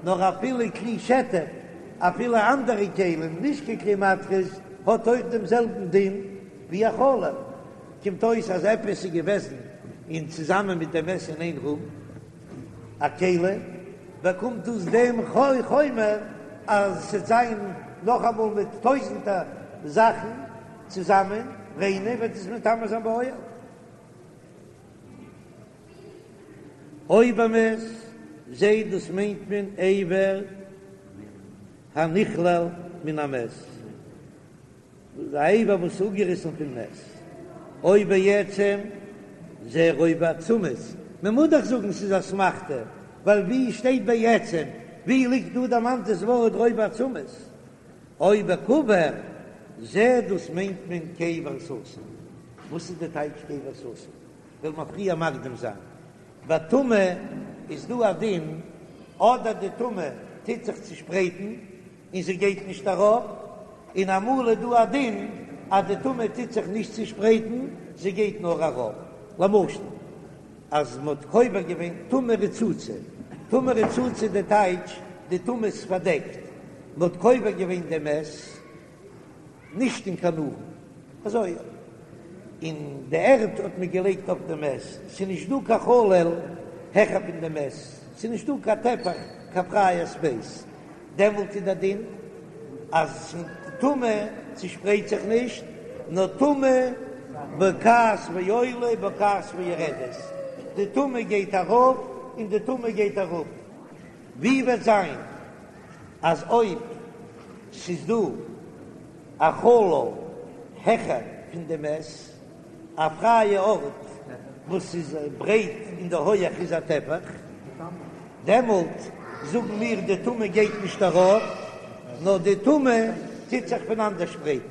נאר אפילו כלי שטף, אפילו אנדערע כלים, נישט קיין כלי מתכות, האט אויך דעם זעלבן דין ווי א חלל. קומט אויס אז עפעס איז געוועזן אין צוזאמען מיט דעם מת אין איין רום, א כלי, באקומט דאס דעם חומר אז ס'עט זיין נאכאמאל מיט טויזענטער זאכן צוזאמען ריינע וועט עס מטמא זיין באוהל. או במת, זה דאס מיינט מען אבר הנחלל מן המת. א אבר וואס איז אפגעריסן פון מת, או בעצם זה רובע עצמות, מען מוז דאך זאגן ס'איז אסמכתא, ווייל ווי שטייט בעצם, ווי ליגט דא דערמאנט דאס ווארט רובע עצמות, או בקבר, זה דאס מיינט מען קבר סתום, וואס איז די טייטש קבר סתום? וועל מיר פריער מקדים זיין, ביי טומאה איז דא א דין, אדער די טומאה טוט זיך צושפרייטן, און זי גייט נישט אראפ, און אמאל איז דא א דין אז די טומאה טוט זיך נישט צושפרייטן, זי גייט נאר אראפ, למשל אז מען האט קובר געווען טומאה רצוצה, טומאה רצוצה די טייטש די טומאה איז פארדעקט, מען האט קובר געווען די מת נישט אין קיין ארון, אזוי און די ערד האט מען געלייגט אויף די מת, ס'איז נישט דא קיין חלל העכער פון די מת, ס'איז נישט דא קיין טפח קיין פרייע ספעיס. דעמאלט איז דער דין אז טומאה צושפרייט זיך נישט, נאר טומאה בוקעת ועולה בוקעת ויורדת, די טומאה גייט ארויף און די טומאה גייט אראפ. ווי וועט זיין אז אויב ס'איז דא א חלל העכער פון די מת, א פרייע ארט וואס איז ברייט און די הויעך איז א טפח, דעמאלט זאגן מיר די טומאה גייט נישט ארויף, נאר די טומאה טוט זיך פונאנדערשפרייטן.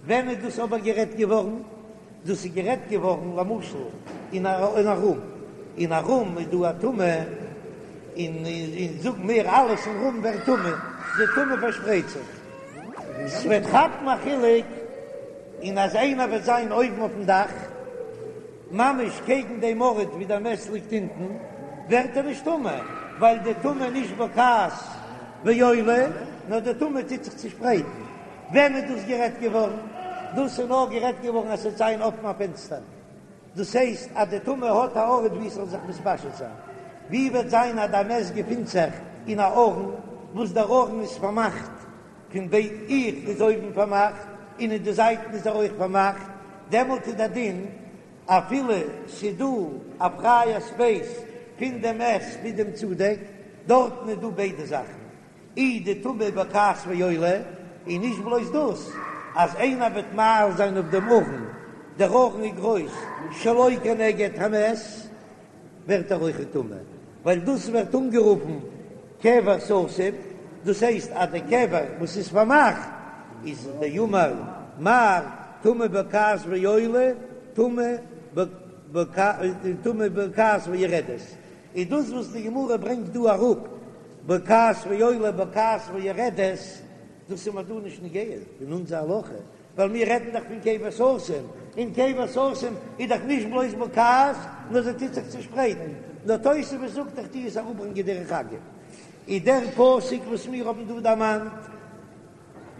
ווען איז דאס אבער גערעדט געווארן? דאס איז גערעדט געווארן למשל אין א רום, אין א רום איז דא א טומאה, און זאגן מיר אלעס אין רום ווערט טמא, די טומאה פארשפרייט זיך, ס'וועט כאפן א חילוק. און אז איינער וועט זיין אויבן אויפן דאך, ממש קעגן דעם ארט ווי דער מת ליגט אונטן, ווערט ער נישט טמא, ווייל די טומאה איז נישט בוקעת ועולה, נאר די טומאה טוט זיך צושפרייטן. ווען איז דאס גערעדט געווארן? דאס איז נאר גערעדט געווארן אז ס'וועט זיין אפן א פענסטער, דאס הייסט אז די טומאה האט א ארט ווי עס זאל זיך מתפשט זיין. ווי וועט זיין אז דער מת געפינט זיך אין א ארון וואס דער ארון איז פארמאכט פון ביידע איך איז אויבן פארמאכט און אין די זייטן איז ער אויך פארמאכט, דעמאלט איז דער דין אפילו ס'איז דא א פרייע ספעיס פון דעם מת ביז דעם צודעק, דארטן איז דא ביידע זאכן, אי די טומאה בוקעת ועולה, און נישט בלויז דאס, אז איינער וועט מאהיל זיין אויף דעם ארון, דער ארון איז גרויס שלא כנגד המת, ווערט ער אויך טמא, ווייל דאס ווערט אנגערופן קבר סתום, דאס הייסט אז די קבר וואס איז פארמאכט איז דאמר מר טומאה בוקעת ועולה טומאה בוקעת ויורדת, איז דאס וואס די גמרא ברענגט דא אראפ בוקעת ועולה בוקעת ויורדת, דאס איז מיר דא נישט נוגע אין אונזער הלכה, ווייל מיר רעדן דאך פון קבר סתום, און קבר סתום איז דאך נישט בלויז בוקעת, נאר זי טוט זיך צושפרייטן, נאר תוספות זאגט איך טו עס אראפברענגען דרך אגב, איז דער פסוק וואס מיר האבן דא דערמאנט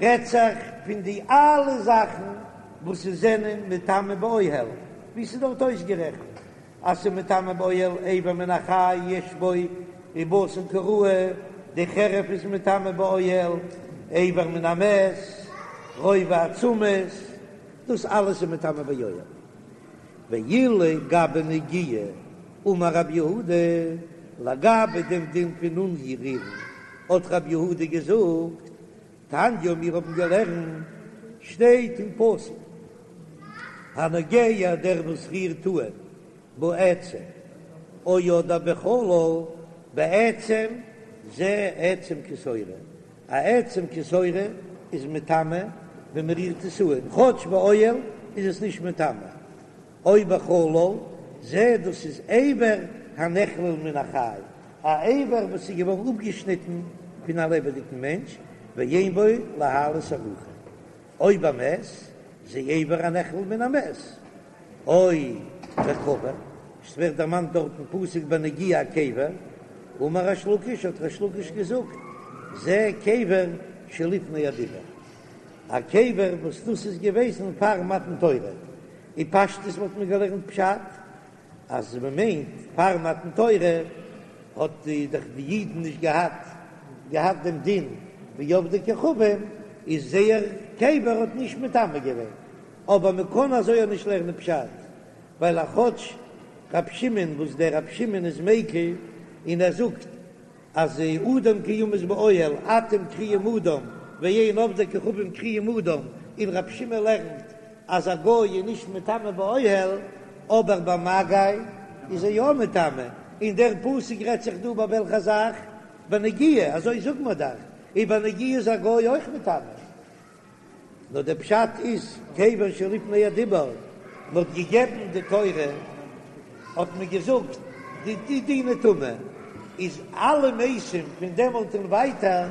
רעדט זיך פון די אלע זאכן וואס זענען מטמא באוהל, ווי ס'איז דארט אויסגערעכנט אז ס'איז מטמא באוהל אבר מן החי יש בו ריבתן כראוי, די חרב איז מטמא באוהל, אבר מן המת, רובע עצמות, דאס אלעס איז מטמא באוהל. ואילו גבי נגיעה אמר רב יהודה, לגבי דעם דין פון אנרירן האט רב יהודה געזאגט, תניא מיר האבן געלערנט, שטייט אין פסוק, הנוגע דער וואס רירט אן בעצם או אדער בחלל, בעצם זה עצם כשעורה, א עצם כשעורה איז מטמא ווען מען רירט עס אן, כאטש באוהל איז עס נישט מטמא, או בחלל, זה דאס איז אבר הנחלל מן החי, א אבר וואס איז געווארן אפגעשניטן פון א לעבעדיגן מענטש, ואין בו להעלות ארוחה, או במת, זה אבר הנחלל מן המת, או בקבר, עס ווערט דערמאנט דארט אין פסוק בנגיעה א קבר. אמר ריש לקיש, האט ריש לקיש געזאגט, זה קבר שלפני הדיבור, א קבר וואס דאס איז געוועזן פאר מתן תורה, אין פשטות וואלט מען געלערנט פשט אז מען מיינט פאר מתן תורה האט די דאך די אידן נישט געהאט געהאט דעם דין ווי עובדי כוכבים, איז זייער קבר האט נישט מטמא געווען, אבער מען קען אזוי אויך נישט לערנען פשט, ווייל א כאטש רב שמעון וואס דער רב שמעון איז מיקל און ער זאגט אז אדם כי ימות באוהל אתם קרויים אדם ואין עובדי כוכבים קרויים אדם, און רב שמעון לערנט אז א גוי איז נישט מטמא באוהל אבער במגע איז ער יא מטמא, און דער פסוק רעדט זיך דא ביי וועלכע זאך? בנגיעה, אזוי זאגט מען דאך, און בנגיעה איז א גוי אויך מטמא. נאר דער פשט איז קבר שלפני הדיבור, מען האט געגעבן די תורה האט מען געזאגט די די דיני טומאה איז אלע מתים פון דעמאלט און ווייטער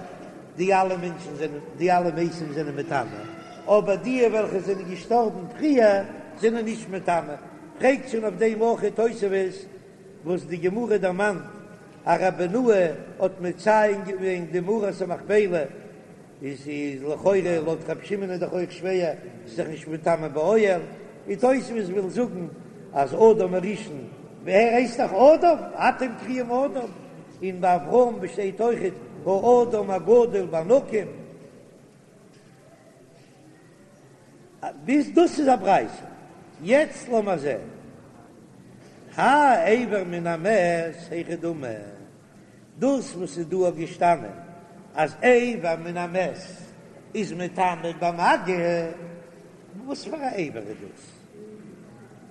די אלע מענטשן זענען די אלע מתים זענען מטמא, אבער די וועלכע זענען געשטארבן פריער זענען נישט מטמא, פרעגט שוין אויף דעם אויך תוספות וואס די גמרא דערמאנט אז ר' בנאה האט מציין געווען די מערת המכפלה. איז איז לכאורה לויט רבי שמעון איז דאך אויך שווער, ס'איז דאך נישט מטמא באוהל, און תוספות וויל זאגן אז אדם הראשון, ער הייסט דאך אדם, אתם קרויים אדם, און ביי אברהם שטייט אויכעט האדם הגדול בענקים. ביז דאס איז א ברייתא. יעצט לאמיר זען, האי אבר מן המת היכי דמי. דאס וואס איז דא געשטאנען אז אבר מן המת איז מטמא במגע, וואס פאר א אבר איז דאס?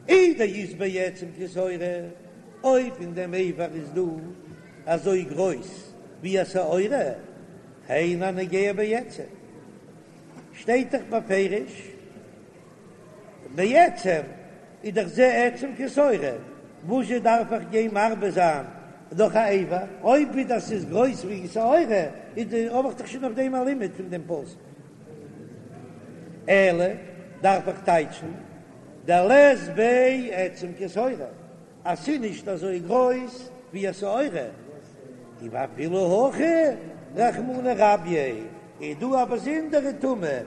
אי דאית ביה עצם כשעורה, אויב אין דעם אבר איז דא אזוי גרויס ווי א שעורה, היינו הנוגע בעצם, שטייט דאך בפירוש בעצם איז דאך זה עצם כשעורה, וואזשע דארף איך גיין מרבה זיין נאך א אבר? אויב ווידער ס'איז גרויס ווי שעורה איז די האב איך דאך שוין אויף דעם א לימוד פון דעם פסוק. אלא דארף איך טייטשן דלית ביה עצם כשעורה אז ס'איז נישט אזוי גרויס ווי א שעורה, ואפילו הכי רחמנא רביה איז דא א באזונדערע טומאה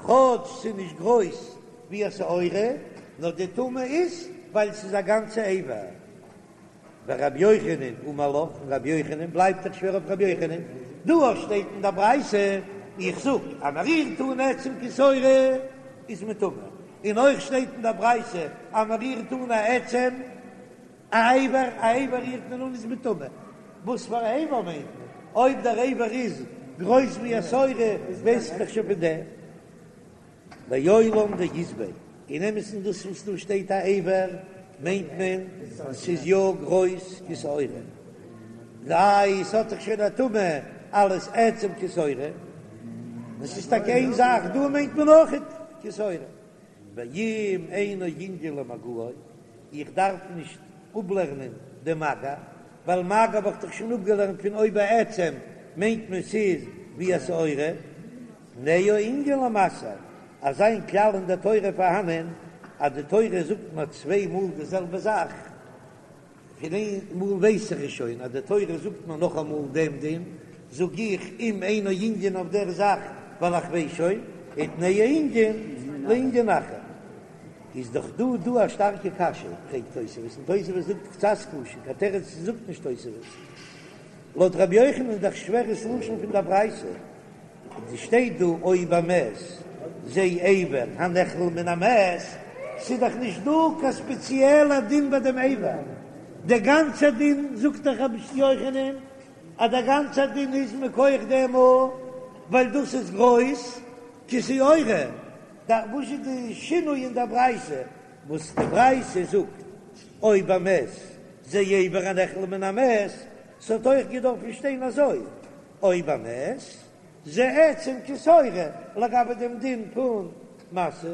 כאטש ס'איז נישט גרויס ווי א שעורה, נאר די טומאה איז ווייל ס'איז א גאנצע אבר. ורבי יוחנן אמר לך, און רבי יוחנן בלייבט דאך שווער אויף רבי יוחנן, דא אויך שטייט אין דער ברייתא, איך זאג אז מ'רירט אן עצם כשעורה איז מען טמא, און אויך שטייט אין דער ברייתא אז מ'רירט אן א עצם א אבר, א אבר רירט מען אן איז מען טמא, וואס פאר א אבר מיינט מען? אויב דער אבר איז גרויס ווי א שעורה ווייס איך דאך שוין פון דעם. לעולם דאית ביה, אין אמת'ן דאס וואס דא שטייט א אבר מיינט מען ס'איז יא גרויס כשעורה, איי ס'האט דאך שוין א טומאה אלס עצם כשעורה, און ס'איז טאקע איין זאך, דא מיינט מען אויכעט כשעורה. ואם אינו ענין למגעו, איך דארף נישט אפלערנען די מגע, ווייל מגע האב איך דאך שוין אפגעלערנט פון או בעצם מיינט מען ס'איז ווי א שעורה, תנהו ענין למשא, אזא איין כלל אין דער תורה פארהאנען אז די תורה זאגט מיר צוויי מאל די זעלבע זאך, פון איין מאל ווייס איך עס שוין אז די תורה זאגט מיר נאכאמאל דעם דין, זאג איך אם אינו ענין אויף דער זאך ווייל איך ווייס שוין, ותנהו ענין לענין אחר. איז דאך דא דא א שטארקע קשיא, פרעגט תוספות, און תוספות זאגט קצת קשה, קיין תירוץ זאגט נישט תוספות. לויט רבי יוחנן איז דאך שווער ס'לשון פון דער ברייתא. עס שטייט דא או במת זה אבר הנכלל מן המת, ס'איז דאך נישט דא קיין ספעציעלע דין ביי דעם אבר, דער גאנצער דין זאגט דאך רבי יוחנן אז דער גאנצער דין איז מכח דעם ווייל דאס איז גרויס כשעורה, וואס איז די שינוי אין דער ברייתא וואס די ברייתא זאגט או במת זה אבר הנכלל מן המת, ס'האט אויך געדארפן שטיין אזוי או במת, זה עצם כשעורה לגבי דעם דין פון משא.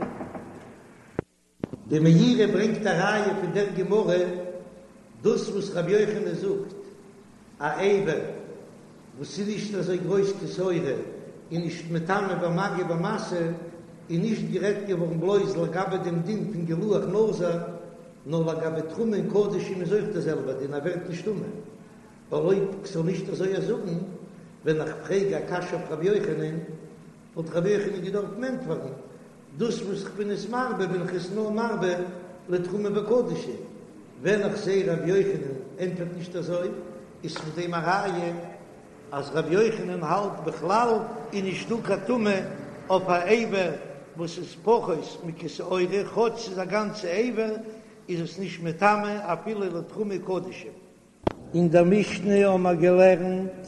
די מאירי ברענגט א ראיה פון דער גמרא, דאס וואס רבי יוחנן זאגט א אבר וואס איז נישט אזוי גרויס כשעורה איז נישט מטמא במגע ובמשא, איז נישט גערעדט געווארן בלויז לגבי דעם דין פון גילוח נזיר, נאר לגבי תרומה און קדשים איז אויך דער זעלבער דין, ער ווערט נישט טמא. ווייל אויב כ'זאל נישט אזוי זאגן, ווען איך פרעג א קשיא אויף רבי יוחנן, וואלט רבי יוחנן געדארפט ענטפערן, דאס וואס כ'בין עס מרבה בין איך עס נאר מרבה לתרומה וקדשים, ווען איך זע רבי יוחנן ענטפערט נישט אזוי, איז פון דעם א ראיה אז רבי יוחנן האלט בכלל איז נישט דא קיין טומאה אויף א אבר וואס איז פחות מכשעורה, כאטש ס'איז א גאנצע אבר איז עס נישט מטמא אפילו לתרומה קדשים. אין דער משנה האבן מיר געלערנט,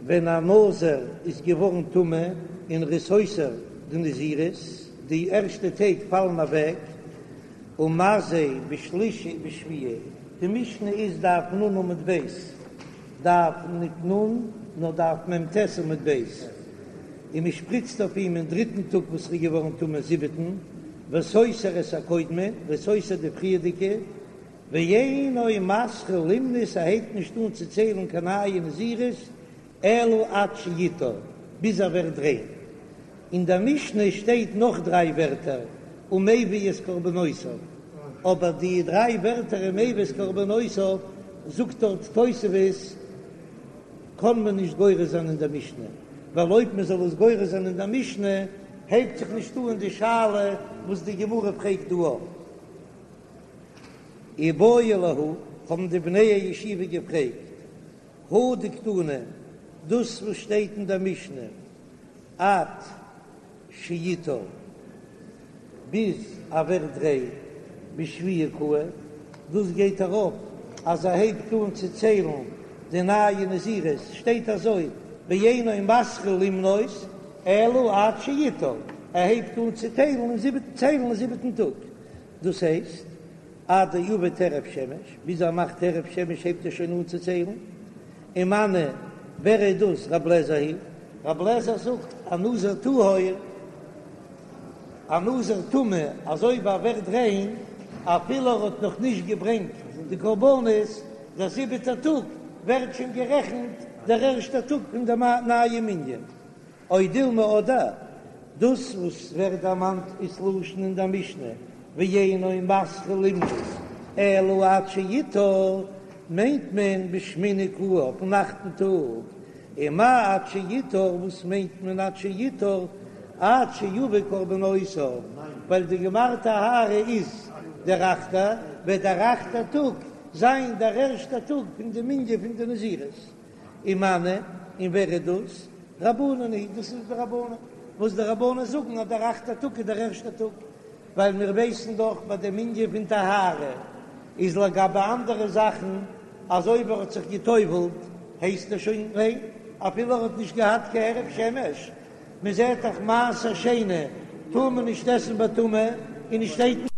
ווען א נזיר איז געווארן טמא און ער איז סותר די נזירות, די ערשטע טעג פאלן אוועק, ומזה בשלישי ובשביעי, די משנה איז דף נ עמוד ב', דף ניט נ, נאר דף מ"ט עמוד ב', און מען שפריצט אויף אים אין דריטן טאג וואס ער איז געווארן טמא זיבעטן, וסותר את הקודמין, ער איז סותר די פריערדיגע, ואינו מתחיל למנות ער הייבט נישט אן צו ציילן קיין נייע נזירות אלא עד שיטהר, ביז ער ווערט ריין. אין דער משנה שטייט נאך דריי ווערטער ומביא את קרבנותיו, אבער די דריי ווערטער ומביא את קרבנותיו זאגט דארט תוספות קען מען נישט גורס זיין אין דער משנה, ווייל אויב מען זאל עס גורס זיין אין דער משנה הייבט זיך נישט אן די שאלה וואס די גמרא פרעגט דא אויף. איבעיא להו, האבן די בני הישיבה געפרעגט, הא דקתני, דאס וואס שטייט אין דער משנה עד שיטהר, ביז ער ווערט ריין בשביעי קאי, דאס גייט ארויף אז ער הייבט אן צו ציילן די נייע נזירות, שטייט אזוי ואינו מתחיל למנות אלא עד שיטהר, ער הייבט אן צו טיילן אין זיבעטן ציילן אין זיבעטן טאג, דאס הייסט עד דעביד הערב שמש, ביז ער מאכט הערב שמש הייבט ער שוין אן צו ציילן, ומני, ווער איז דאס רב לעזער היא? רב לעזער זאגט א נזיר טהור, א נזיר טמא, אז אויב ער ווערט ריין אפילו ער האט נאך נישט געברענגט די קרבנות, דער זיבעטער טאג ווערט שוין גערעכנט דער ערשטער טאג פון די נייע מנין. או דילמא אדער דאס וואס ווערט דערמאנט איז לשון אין דער משנה ואינו מתחיל למנות אלא עד שיטהר, מיינט מען בשמיני קאי אויפן אכטן טאג, ומאי עד שיטהר, וואס מיינט מען עד שיטהר? עד שיביא קרבנותיו, ווייל די גמר טהרה איז דער אכטער, וועט דער אכטער טאג זיין דער ערשטער טאג פון די מנין פון די נזירות. ומני, און ווער איז דאס? רבנן היא, דאס איז די רבנן, וואס די רבנן זאגן אז דער אכטער טאג איז דער ערשטער טאג, ווייל מיר ווייסן דאך ביי דעם ענין פון טהרה איז לגבי אנדערע זאכן אז אויב ער האט זיך גע'טובל'ט הייסט ער שוין ריין אפילו ער האט נישט געהאט קיין הערב שמש, מען זעט דאך מעשר שני טאר מען נישט עסן בטומאה און נישט שטייט.